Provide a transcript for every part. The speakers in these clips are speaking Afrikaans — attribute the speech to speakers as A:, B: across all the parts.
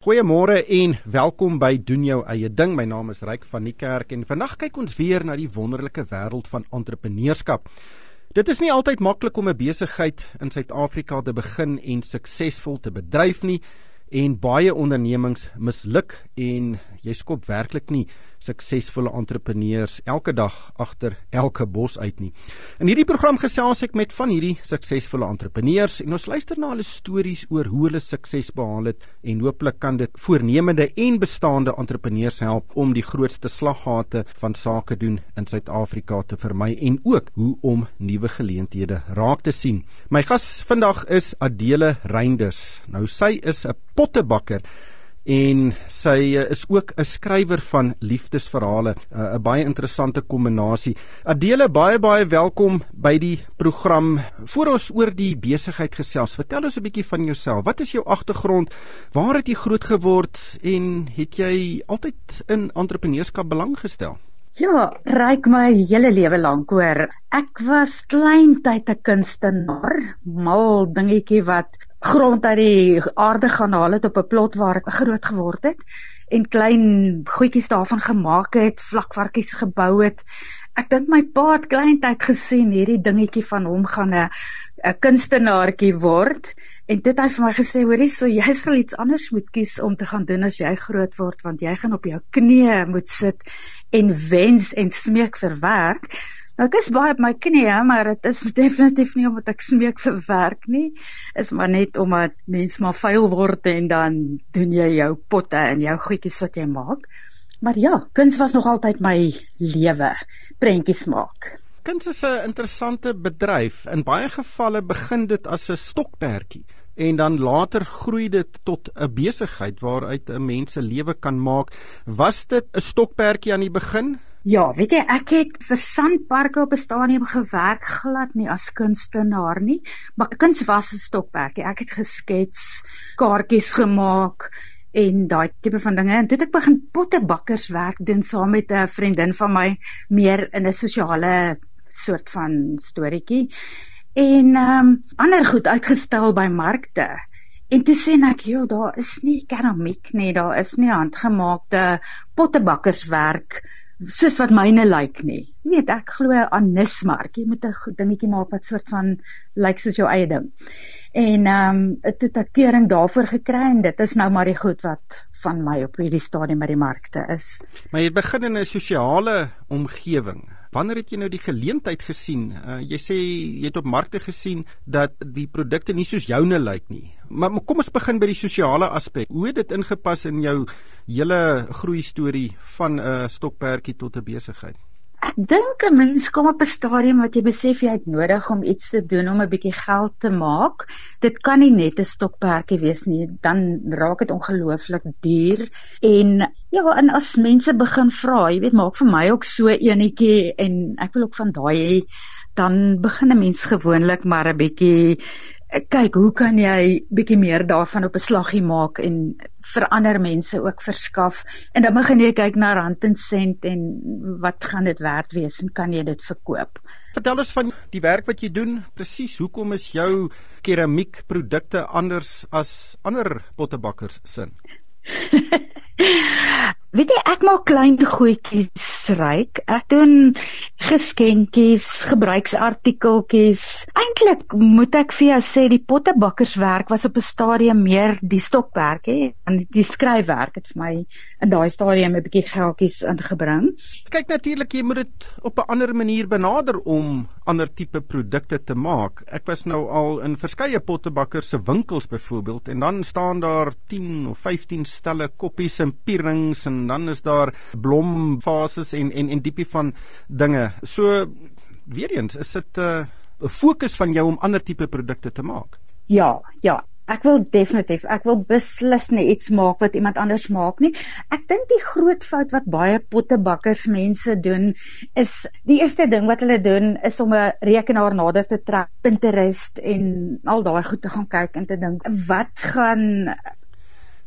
A: Goeiemôre en welkom by Doen Jou Eie Ding. My naam is Ryk van die Kerk en vandag kyk ons weer na die wonderlike wêreld van entrepreneurskap. Dit is nie altyd maklik om 'n besigheid in Suid-Afrika te begin en suksesvol te bedryf nie, en baie ondernemings misluk en jy skop werklik nie suksesvolle entrepreneurs elke dag agter elke bos uit nie. In hierdie program gesels ek met van hierdie suksesvolle entrepreneurs en ons luister na hulle stories oor hoe hulle sukses behaal het en hooplik kan dit voornemende en bestaande entrepreneurs help om die grootste slaggate van sake doen in Suid-Afrika te vermy en ook hoe om nuwe geleenthede raak te sien. My gas vandag is Adele Reinders. Nou sy is 'n pottebakker en sy is ook 'n skrywer van liefdesverhale, 'n baie interessante kombinasie. Adele, baie welkom by die program. Voor ons oor die besigheid gesels, vertel ons 'n bietjie van jouself. Wat is jou agtergrond? Waar het jy groot geword en het jy altyd in entrepreneurskap belang gestel?
B: Ja, Ryk, my hele lewe lank hoor. Ek was kleintyd 'n kunstenaar, mal dingetjie wat grond uit die aarde gaan haal het op 'n plot waar ek groot geword het en klein goedjies daarvan gemaak het, vlakvarkies gebou het. Ek dink my pa het kleintyd gesien hierdie dingetjie van hom gaan 'n kunstenaartjie word en dit het hy vir my gesê, hoorie, so jy sal iets anders moet kies om te gaan doen as jy groot word, want jy gaan op jou knieë moet sit en wens en smeek vir werk. Nou, ek is baie op my knieë, maar dit is definitief nie omdat ek smeek vir werk nie, is maar net omdat mens maar vuil word en dan doen jy jou potte en jou goedjies wat jy maak. Maar ja, kuns was nog altyd my lewe, prentjies maak.
A: Kuns is 'n interessante bedryf. In baie gevalle begin dit as 'n stokperdjie en dan later groei dit tot 'n besigheid waaruit 'n mens se lewe kan maak. Was dit 'n stokperdjie aan die begin?
B: Ja, weet jy, ek het vir Sandparke op 'n stadium gewerk, glad nie as kunstenaar nie, maar kuns was 'n stokperdjie. Ek het geskets, kaartjies gemaak en daai tipe van dinge. En toe het ek begin pottebakkerswerk doen saam met 'n vriendin van my, meer in 'n sosiale soort van storieetjie. En ander goed uitgestel by markte. En toe sê ek, joh, daar is nie keramiek nie, daar is nie handgemaakte pottebakkerswerk soos wat myne lyk nie. Jy weet, ek glo aan nismark. Jy moet 'n dingetjie maak wat soort van lyk soos jou eie ding. En toe het ek keuring daarvoor gekry en dit is nou maar die goed wat van my op hierdie stadium by die markte is.
A: Maar jy begin in 'n sosiale omgewing. Wanneer het jy nou die geleentheid gesien? Jy sê jy het op markte gesien dat die produkte nie soos joune lyk nie. Maar kom ons begin by die sosiale aspek. Hoe het dit ingepas in jou hele groei storie van 'n stokperdjie tot 'n besigheid?
B: Ek dink 'n mens kom op 'n stadium wat jy besef jy het nodig om iets te doen om 'n bietjie geld te maak. Dit kan nie net 'n stokperdjie wees nie, dan raak dit ongelooflik duur. En ja, en as mense begin vra, jy weet, maak vir my ook so enetjie en ek wil ook van daai hê, dan begin 'n mens gewoonlik maar 'n bietjie kyk, hoe kan jy bietjie meer daarvan op 'n slaggie maak en vir ander mense ook verskaf. En dan begin jy kyk na rand en sent en wat gaan dit werd wees en kan jy dit verkoop.
A: Vertel ons van die werk wat jy doen, presies. Hoekom is jou keramiekprodukte anders as ander pottebakkers sin?
B: Weet jy, ek maak klein goedjies, Ryk. Ek doen geskenkies, gebruiksartikeltjies. Eintlik moet ek vir jou sê, die pottebakkerswerk was op 'n stadium meer die stokperdjie en die skryfwerk het vir my in daai stadium 'n bietjie geldjies ingebring.
A: Kyk, natuurlik, jy moet dit op 'n ander manier benader om ander tipe produkte te maak. Ek was nou al in verskeie pottebakkers se winkels byvoorbeeld en dan staan daar 10 of 15 stelle koppies en pierings en dan is daar blomvases en diepie van dinge. So, weer eens, is dit 'n fokus van jou om ander tipe produkte te maak?
B: Ja, ek wil beslis nie iets maak wat iemand anders maak nie. Ek dink die groot fout wat baie pottebakkers mense doen, is die eerste ding wat hulle doen, is om 'n rekenaar nader te trek, Pinterest en al daai goed te gaan kyk en te dink,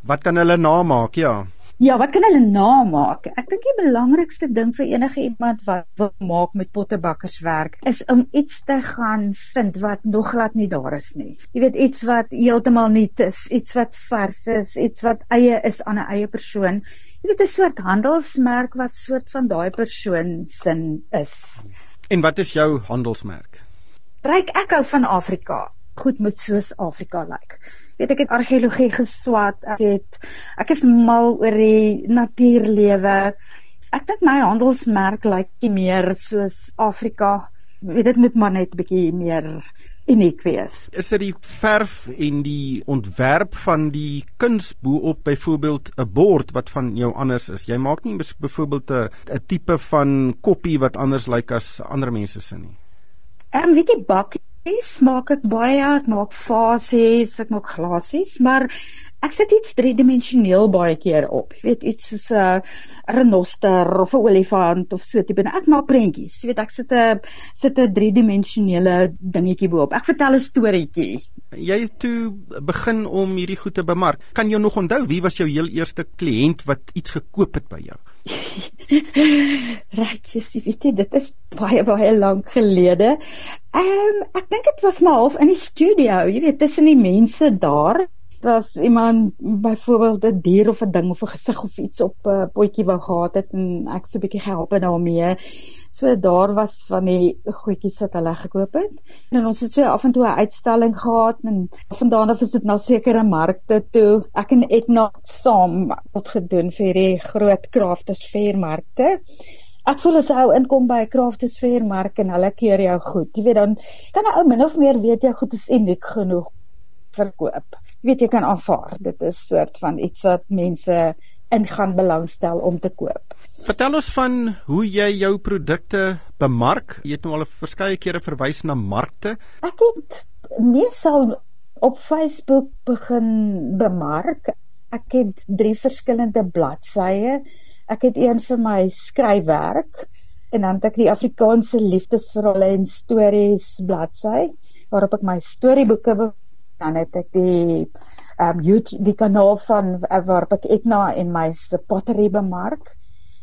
B: wat kan
A: hulle namaak, ja.
B: Ja, wat kan hulle namaak? Ek dink die belangrikste ding vir enige iemand wat wil maak met pottebakkerswerk is om iets te gaan vind wat nog glad nie daar is nie. Jy weet, iets wat heeltemal nuut is, iets wat vars is, iets wat eie is aan 'n eie persoon. Jy weet, 'n soort handelsmerk wat soort van daai persoon sin is.
A: En wat is jou handelsmerk?
B: Ryk, ek hou van Afrika. Goed moet soos Afrika lyk. Weet, ek het argeologie geswat, ek is mal oor die natuurlewe. Ek dink my handelsmerk lyk meer soos Afrika. Weet, dit moet maar net 'n bietjie meer uniek wees.
A: Is dit die verf en die ontwerp van die kuns bo-op byvoorbeeld 'n bord wat van jou anders is? Jy maak nie byvoorbeeld 'n tipe van koppie wat anders lyk as ander mense se nie.
B: Weet jy, bakkies maak ek baie, ek maak vasies, ek maak glasies, maar ek sit iets driedimensioneel baie keer op. Jy weet, iets soos 'n renoster of 'n olifant of so tipe. Ek maak prentjies. Jy weet, ek sit 'n driedimensionele dingetjie bo-op. Ek vertel 'n storieetjie.
A: Jy het toe begin om hierdie goed te bemark. Kan jy nog onthou wie was jou heel eerste kliënt wat iets gekoop het by jou?
B: Regtig, weet jy, dit is baie lank gelede. Ek dink dit was maar half in die studio, jy weet, tussen die mense daar. As iemand byvoorbeeld 'n dier of 'n ding of 'n gesig of iets op 'n potjie wou gehad het en ek so 'n bietjie gehelp het daarmee. So daar was van die goedjies wat hulle gekoop het. En ons het so af en toe 'n uitstalling gehad en vandaan af is dit na sekere markte toe. Ek en Edna saam wat gedoen vir die groot Crafters Fair markte. Ek voel as 'n ou inkom by 'n Crafters Fair mark en hulle keer jou goed. Jy weet, dan kan 'n ou min of meer weet jou goed is uniek genoeg verkoop. Jy weet, jy kan aanvaar. Dit is soort van iets wat mense in gaan belangstel om te koop.
A: Vertel ons van hoe jy jou produkte bemark. Jy het nou al verskeie kere verwys na markte.
B: Ek het meestal op Facebook begin bemark. Ek het 3 verskillende bladsye. Ek het een vir my skryfwerk en dan het ek die Afrikaanse liefdesverhale en stories bladsy waarop ek my storieboeke. Dan het ek die kanaal van waarop ek Etna en my pottery bemark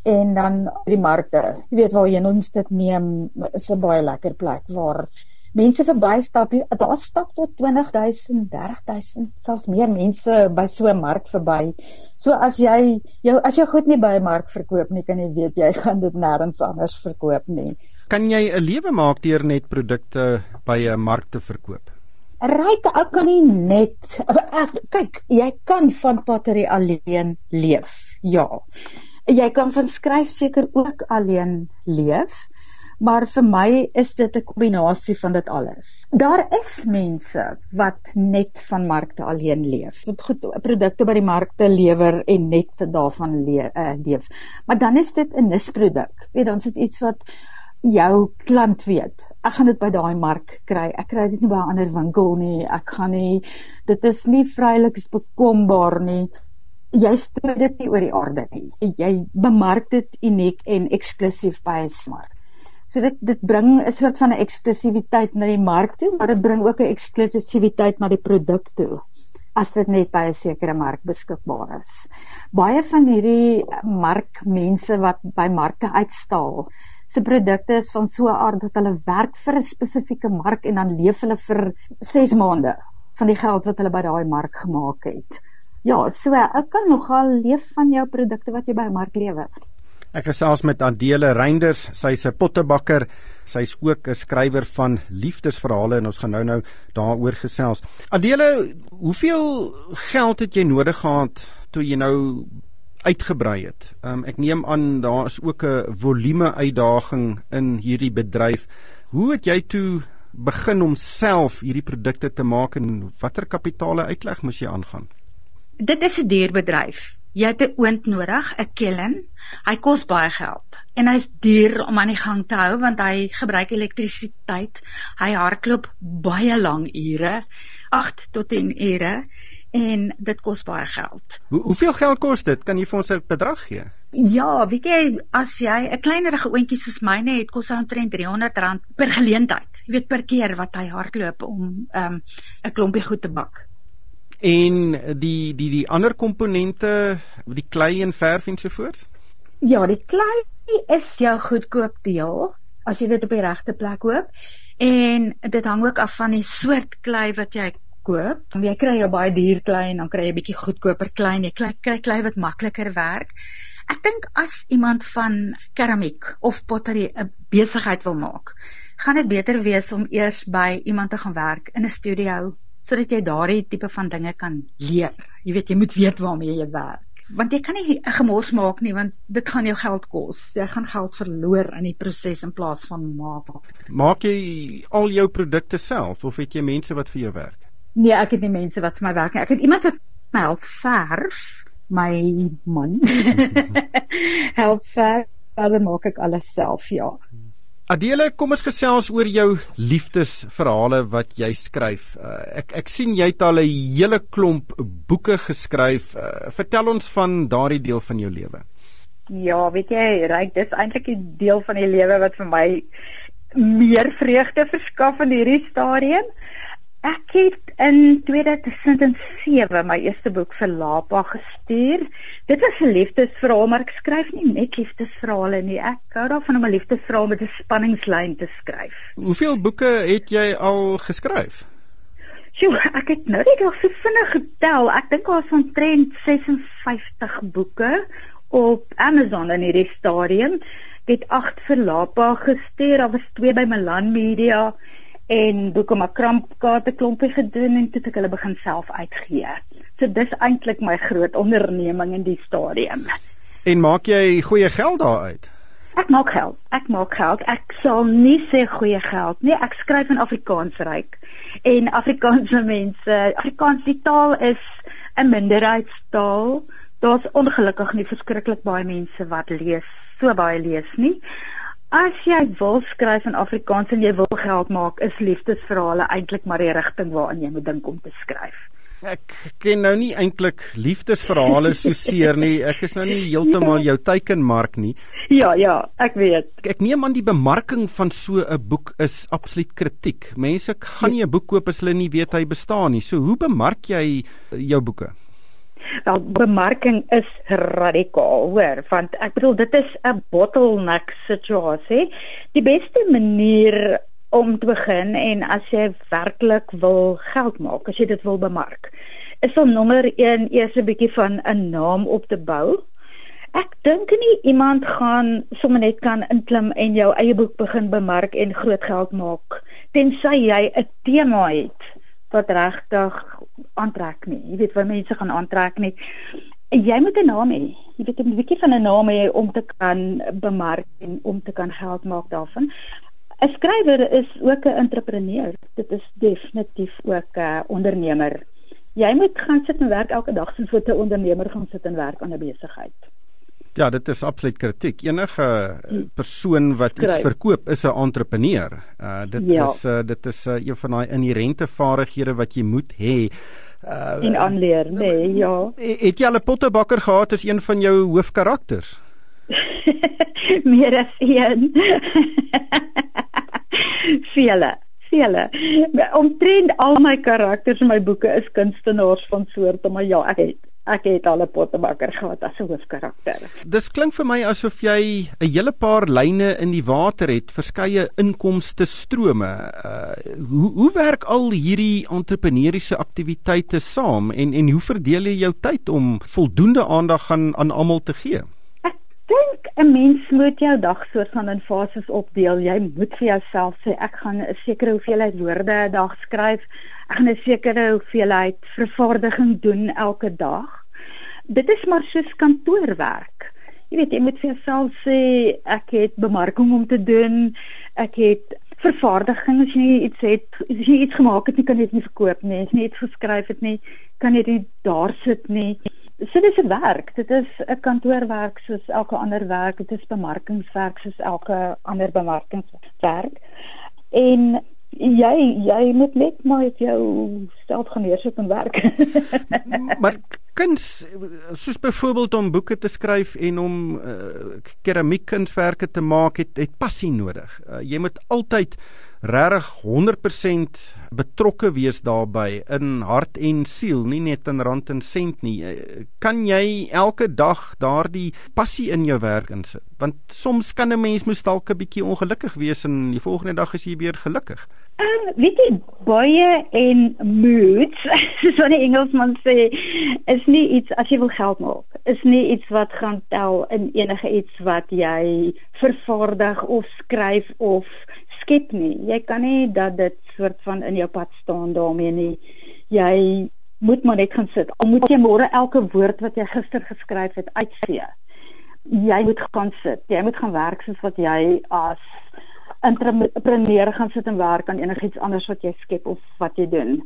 B: en dan die markte. Jy weet waarheen ons dit neem, is 'n baie lekker plek waar mense verbystap. Daar stap tot 20.000, 30.000, selfs meer mense by so 'n mark verby. So as jy goed nie by 'n mark verkoop nie, kan jy weet jy gaan dit nêrens anders verkoop nie.
A: Kan jy 'n lewe maak deur net produkte by 'n mark te verkoop?
B: Ryk, ek kan nie net kyk, jy kan van pottery alleen leef. Ja. Jy kan van skryf seker ook alleen leef, maar vir my is dit 'n kombinasie van dit alles. Daar is mense wat net van markte alleen leef. Wat goed produkte by die markte lewer en net daarvan leef. Maar dan is dit 'n nisproduk. Weet, dan is dit iets wat jou klant weet. Ek gaan dit by daai mark kry. Ek kry dit nie by 'n ander winkel nie. Dit is nie vrylik bekombaar nie. Jy strooi dit nie oor die aarde nie. Jy bemark dit uniek en eksklusief by 'n mark. So dit bring 'n soort van 'n eksklusiwiteit na die mark toe, maar dit bring ook 'n eksklusiwiteit na die produk toe, as dit net by 'n sekere mark beskikbaar is. Baie van hierdie markmense wat by markte uitstal, se produkte is van so 'n aard dat hulle werk vir 'n spesifieke mark en dan leef hulle vir 6 maande van die geld wat hulle by daai mark gemaak het. Ja, so ek kan nogal leef van jou produkte wat jy by 'n mark lewer.
A: Ek gesels met Adele Reinders, sy's 'n pottebakker, sy's ook 'n skrywer van liefdesverhale en ons gaan nou daaroor gesels. Adele, hoeveel geld het jy nodig gehad toe jy nou uitgebrei het? Ek neem aan daar is ook 'n volume uitdaging in hierdie bedryf. Hoe het jy toe begin om self hierdie produkte te maak en watter kapitale uitleg moes jy aangaan?
B: Dit is 'n duur bedryf. Jy het 'n oond nodig, 'n kiln. Hy kos baie geld en hy's duur om aan die gang te hou want hy gebruik elektrisiteit. Hy hardloop baie lang ure, 8 tot 10 ure en dit kos baie geld.
A: Hoeveel geld kos dit? Kan jy vir ons 'n bedrag gee?
B: Ja, weet jy, as jy 'n kleinerige oontjie soos myne het, kos hy omtrent R300 per geleentheid. Jy weet, per keer wat hy hardloop om 'n klompie goed te bak.
A: En die ander komponente, die klei en verf ensovoorts?
B: Ja, die klei is jou goedkoop deel as jy dit op die regte plek koop. En dit hang ook af van die soort klei wat jy koop. Jy kry jou baie duur klei en dan kry jy 'n bietjie goedkoper klei en jy kry klei wat makliker werk. Ek dink as iemand van keramiek of pottery 'n besigheid wil maak, gaan dit beter wees om eers by iemand te gaan werk in 'n studio, sodat jy daardie tipe van dinge kan leer. Jy weet, jy moet weet waarmee jy werk. Want jy kan nie 'n gemors maak nie, want dit gaan jou geld kos. Jy gaan geld verloor in die proses in plaas van maak.
A: Maak jy al jou produkte self of het jy mense wat vir jou werk?
B: Nee, ek het nie mense wat vir my werk nie. Ek het iemand wat my help verf, my man. help verf, dan maak ek alles self, ja.
A: Adele, kom ons gesels oor jou liefdesverhale wat jy skryf. Ek sien jy het al 'n hele klomp boeke geskryf. Vertel ons van daardie deel van jou lewe.
B: Ja, weet jy, Ryk, dis eintlik 'n deel van die lewe wat vir my meer vreugde verskaf in hierdie stadium. Ek het in 2007 my eerste boek vir Lapa gestuur. Dit was 'n liefdesverhaal, maar ek skryf nie net liefdesverhale nie. Ek hou daarvan om 'n liefdesverhaal met 'n spanningslyn te skryf.
A: Hoeveel boeke het jy al geskryf?
B: Sjoe, ek het nou net al so vinnig getel. Ek dink daar is omtrent 56 boeke op Amazon in hierdie stadium. Ek het 8 vir Lapa gestuur, daar was 2 by Milan Media en boeke maar krampkaarte klompie gedoen en toe het ek hulle begin self uitgee. So dis eintlik my groot onderneming in die stadium.
A: En maak jy goeie geld daaruit?
B: Ek maak geld. Ek sal nie sê goeie geld nie. Ek skryf in Afrikaans, Ryk. En Afrikaanse mense, Afrikaans die taal is 'n minderheidstaal. Daar's ongelukkig nie verskriklik baie mense wat so baie lees nie. As jy wil skryf in Afrikaans en jy wil geld maak, is liefdesverhale eintlik maar die rigting waarin jy moet dink om te skryf.
A: Ek ken nou nie eintlik liefdesverhale so seer nie. Ek is nou nie heeltemal jou teikenmark nie.
B: Ja, ek weet.
A: Ek neem aan die bemarking van so 'n boek is absoluut kritiek. Mense gaan nie 'n boek koop as hulle nie weet hy bestaan nie. So hoe bemark jy jou boeke?
B: Wel, bemarking is radikaal, hoor, want ek bedoel dit is 'n bottleneck situasie. Die beste manier om te begin en as jy werklik wil geld maak, as jy dit wil bemark, is om nommer 1 eers 'n bietjie van 'n naam op te bou. Ek dink nie iemand gaan sommer net kan inklim en jou eie boek begin bemark en groot geld maak, tensy jy 'n tema het wat regtig aantrek nie. Jy weet wat mense gaan aantrek nie. Jy moet 'n naam hê. Jy weet 'n bietjie van 'n naam hê om te kan bemark en om te kan geld maak daarvan. 'n Skrywer is ook 'n entrepreneur. Dit is definitief ook 'n ondernemer. Jy moet gaan sit en werk elke dag soos wat 'n ondernemer gaan sit en werk aan 'n besigheid.
A: Ja, dit is absoluut kritiek. Enige persoon wat iets verkoop is 'n entrepreneur. Dit is een van daai inherente vaardighede wat jy moet hê.
B: En aanleer, nee, ja.
A: Het jy al 'n pottebakker gehad as een van jou hoofkarakters?
B: Meer as een. Vele. Omtrent al my karakters in my boeke is kunstenaars van soorte, maar ja, ek het al 'n pottebakker gehad as 'n hoofkarakter.
A: Dis klink vir my asof jy 'n hele paar lyne in die water het, verskeie inkomste strome. Hoe werk al hierdie entrepreneuriese aktiwiteite saam en hoe verdeel jy jou tyd om voldoende aandag aan almal te gee?
B: Ek dink 'n mens moet jou dag soort van in fases opdeel. Jy moet vir jouself sê ek gaan 'n sekere hoeveelheid woorde 'n dag skryf. Ek gaan 'n sekere hoeveelheid vervaardiging doen elke dag. Dit is maar soos kantoorwerk. Jy weet, jy moet vir jouself sê ek het bemarking om te doen, ek het vervaardiging, as jy iets gemaak het nie, kan jy dit nie verkoop nie, as jy iets geskryf het nie, kan jy dit daar sit nie. So dis 'n werk, dit is 'n kantoorwerk soos elke ander werk, dit is bemarkingswerk soos elke ander bemarkingswerk. En jy moet net maar met jou self gaan neersit en werk.
A: Maar kuns, soos byvoorbeeld om boeke te skryf en om keramiekkunswerke te maak, het passie nodig. Jy moet altyd regtig 100% betrokke wees daarbey in hart en siel, nie net in rand en sent nie. Kan jy elke dag daardie passie in jou werk insit? Want soms kan 'n mens moes dalk 'n bietjie ongelukkig wees en die volgende dag is jy weer gelukkig.
B: Weet jy, baie en moods, soos wat die Engelsman sê, is nie iets, as jy wil geld maak, is nie iets wat gaan tel in enige iets wat jy vervaardig of skryf of skep nie. Jy kan nie dat dit soort van in jou pad staan daarmee nie. Jy moet maar net gaan sit. Al moet jy môre elke woord wat jy gister geskryf het uitvee. Jy moet gaan sit. Jy moet gaan werk soos wat jy as entrepreneur gaan sit en werk aan enigiets anders wat jy skep of wat jy doen.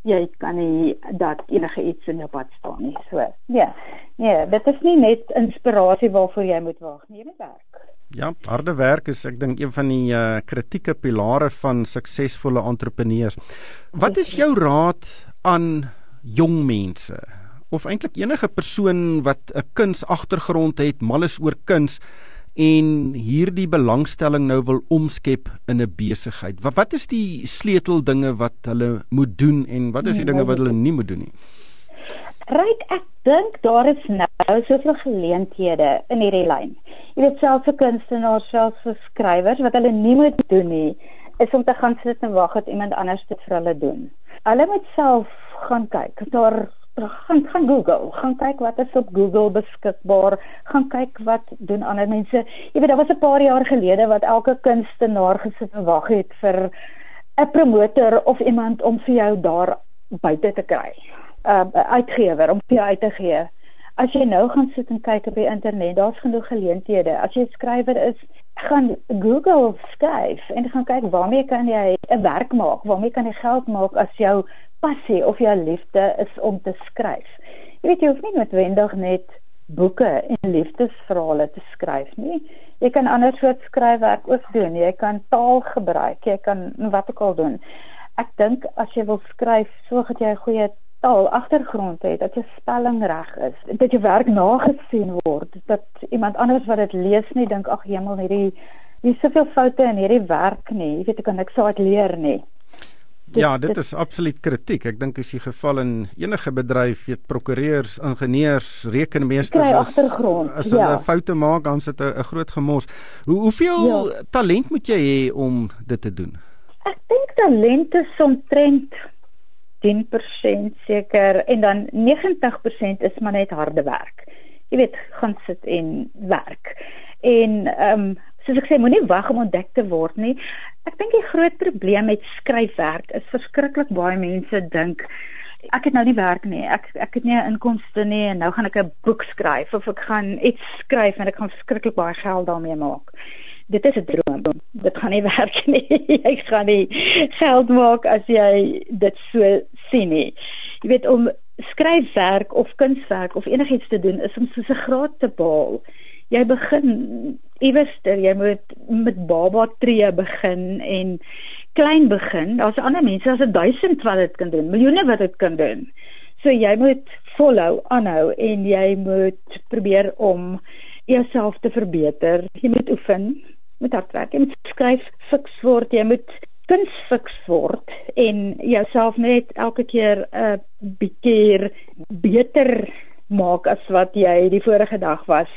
B: Jy kan nie dat enige iets in jou pad staan nie. So, nee, dit is nie net inspirasie waarvoor jy moet wag nie, jy moet werk.
A: Ja, harde werk is, ek dink, een van die kritieke pilare van suksesvolle entrepreneurs. Wat is jou raad aan jong mense? Of eintlik enige persoon wat 'n kunsagtergrond het, mal is oor kuns, en hierdie belangstelling nou wil omskep in 'n besigheid. Wat is die sleuteldinge wat hulle moet doen en wat is die dinge wat hulle nie moet doen nie?
B: Right, ek dink daar is nou soveel geleenthede in hierdie lyn. Jy weet, selfs vir kunstenaars, selfs vir skrywers, wat hulle nie moet doen nie, is om te gaan sit en wag dat iemand anders dit vir hulle doen. Hulle moet self gaan kyk, gaan Google, gaan kyk wat is op Google beskikbaar, gaan kyk wat doen ander mense. Jy weet, daar was 'n paar jaar gelede wat elke kunstenaar gesit en wag het vir 'n promotor of iemand om vir jou daar buite te kry. Uitgewer, om vir jou uit te gee. As jy nou gaan sit en kyk op die internet, daar's genoeg geleenthede. As jy 'n skrywer is, gaan Google skryf en gaan kyk waarmee kan jy 'n werk maak, waarmee kan jy geld maak as jou passie of jou liefde is om te skryf. Jy weet, jy hoef nie noodwendig net boeke en liefdesverhale te skryf nie. Jy kan ander soort skryfwerk ook doen. Jy kan taal gebruik, jy kan wat ook al doen. Ek dink as jy wil skryf, sorg dat jy 'n goeie taal agtergrond het, dat jou spelling reg is, dat jou werk nagesien word, dat iemand anders wat dit lees nie dink, ag hemel, hier is soveel foute in hierdie werk nie. Jy weet, ek kan niks uit leer nie.
A: Ja, dit is absoluut kritiek. Ek dink is die geval in enige bedryf, weet prokureurs, ingenieurs, rekenmeesters, as hulle foute maak, dan sit 'n groot gemors. Hoeveel talent moet jy hê om dit te doen?
B: Ek dink talent is omtrent 10% seker, en dan 90% is maar net harde werk. Jy weet, gaan sit en werk. En soos ek sê, moenie wag om ontdek te word nie. Ek dink die groot probleem met skryfwerk is verskriklik baie mense dink, ek het nou nie werk nie, ek het nie 'n inkomste nie, en nou gaan ek 'n boek skryf, of ek gaan iets skryf en ek gaan verskriklik baie geld daarmee maak. Dit is 'n droom, dit gaan nie werk nie, jy gaan nie geld maak as jy dit so sien nie. Jy weet, om skryfwerk of kunswerk of enigiets te doen, is om soos 'n graad te behaal. Jy begin iewester, jy moet met baba tree begin en klein begin. Daar's ander mense, daar's 1000 wat dit kan doen, miljoene wat dit kan doen. So jy moet volhou, aanhou, en jy moet probeer om jouself te verbeter. Jy moet oefen, moet hard werk, jy moet skryf fiks word, jy moet kuns fiks word en jouself net elke keer 'n bietjie beter maak as wat jy die vorige dag was.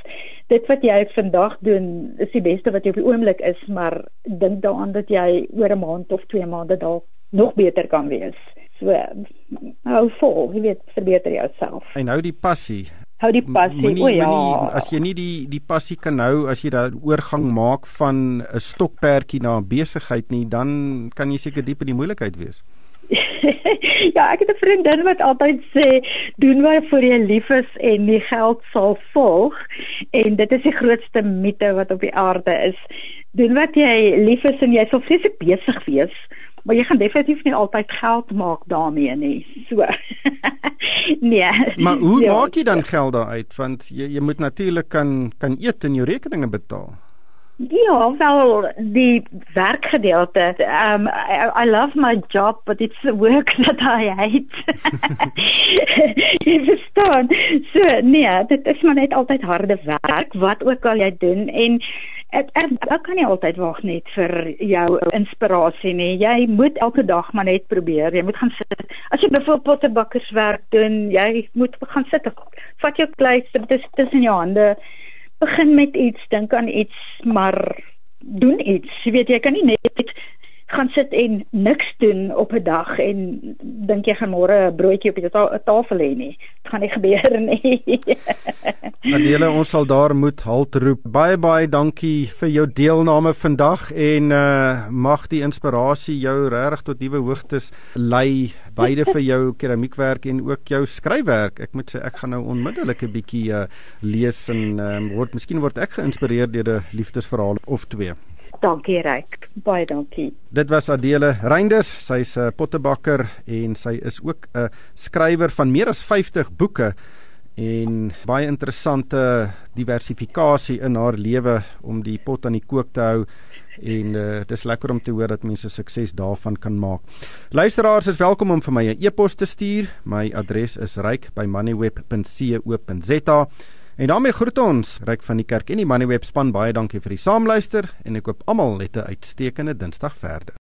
B: Dit wat jy vandag doen is die beste wat jy op die oomblik is, maar dink daaraan dat jy oor 'n maand of 2 maande dalk nog beter kan wees. So, hou vol, jy weet, verbeter jouself.
A: En hou die passie.
B: Hou die passie,
A: as jy nie die passie kan hou, as jy daar oorgang maak van 'n stokperdjie na 'n besigheid nie, dan kan jy seker diep in die moeilikheid wees.
B: Ja, ek het 'n vriendin wat altyd sê, doen waarvoor jy lief is en die geld sal volg, en dit is die grootste mite wat op die aarde is. Doen wat jy lief is en jy sal vreeslik besig wees, maar jy gaan definitief nie altyd geld maak daarmee nie. So. Nee.
A: Maar hoe maak jy dan geld daaruit? Want jy moet natuurlik kan eet en jou rekeninge betaal.
B: Ja, wel, die werkgedeelte. I love my job, but it's the work that I hate. Jy verstaan. So, nee, dit is maar net altyd harde werk, wat ook al jy doen. En Ek kan nie altyd wag net vir jou inspirasie nie. Jy moet elke dag maar net probeer. Jy moet gaan sit. As jy byvoorbeeld pottebakkerswerk doen, jy moet gaan sit. Vat jou kleister tussen jou hande. Begin met iets, dink aan iets, maar doen iets. Jy weet, jy kan nie net gaan sit en niks doen op 'n dag en dink jy gaan môre 'n broodjie op die tafel hê nie. Dit gaan nie gebeur nie.
A: Adele, ons sal daar moet halt roep. Baie dankie vir jou deelname vandag en mag die inspirasie jou regtig tot nuwe hoogtes lei, beide vir jou keramiekwerk en ook jou skryfwerk. Ek moet sê ek gaan nou onmiddellik 'n bietjie lees en miskien word ek geïnspireer deur 'n liefdesverhaal of twee.
B: Dankie Ryk, baie dankie.
A: Dit was Adele Reinders, sy's 'n pottebakker en sy is ook 'n skrywer van meer as 50 boeke en baie interessante diversifikasie in haar lewe om die pot aan die kook te hou en dit is lekker om te hoor dat mense sukses daarvan kan maak. Luisteraars is welkom om vir my 'n e-pos te stuur. My adres is ryk@moneyweb.co.za. En daarmee groet ons, Ryk van die Kerk en die Moneyweb span, baie dankie vir die saamluister en ek hoop almal het 'n uitstekende Dinsdag verder.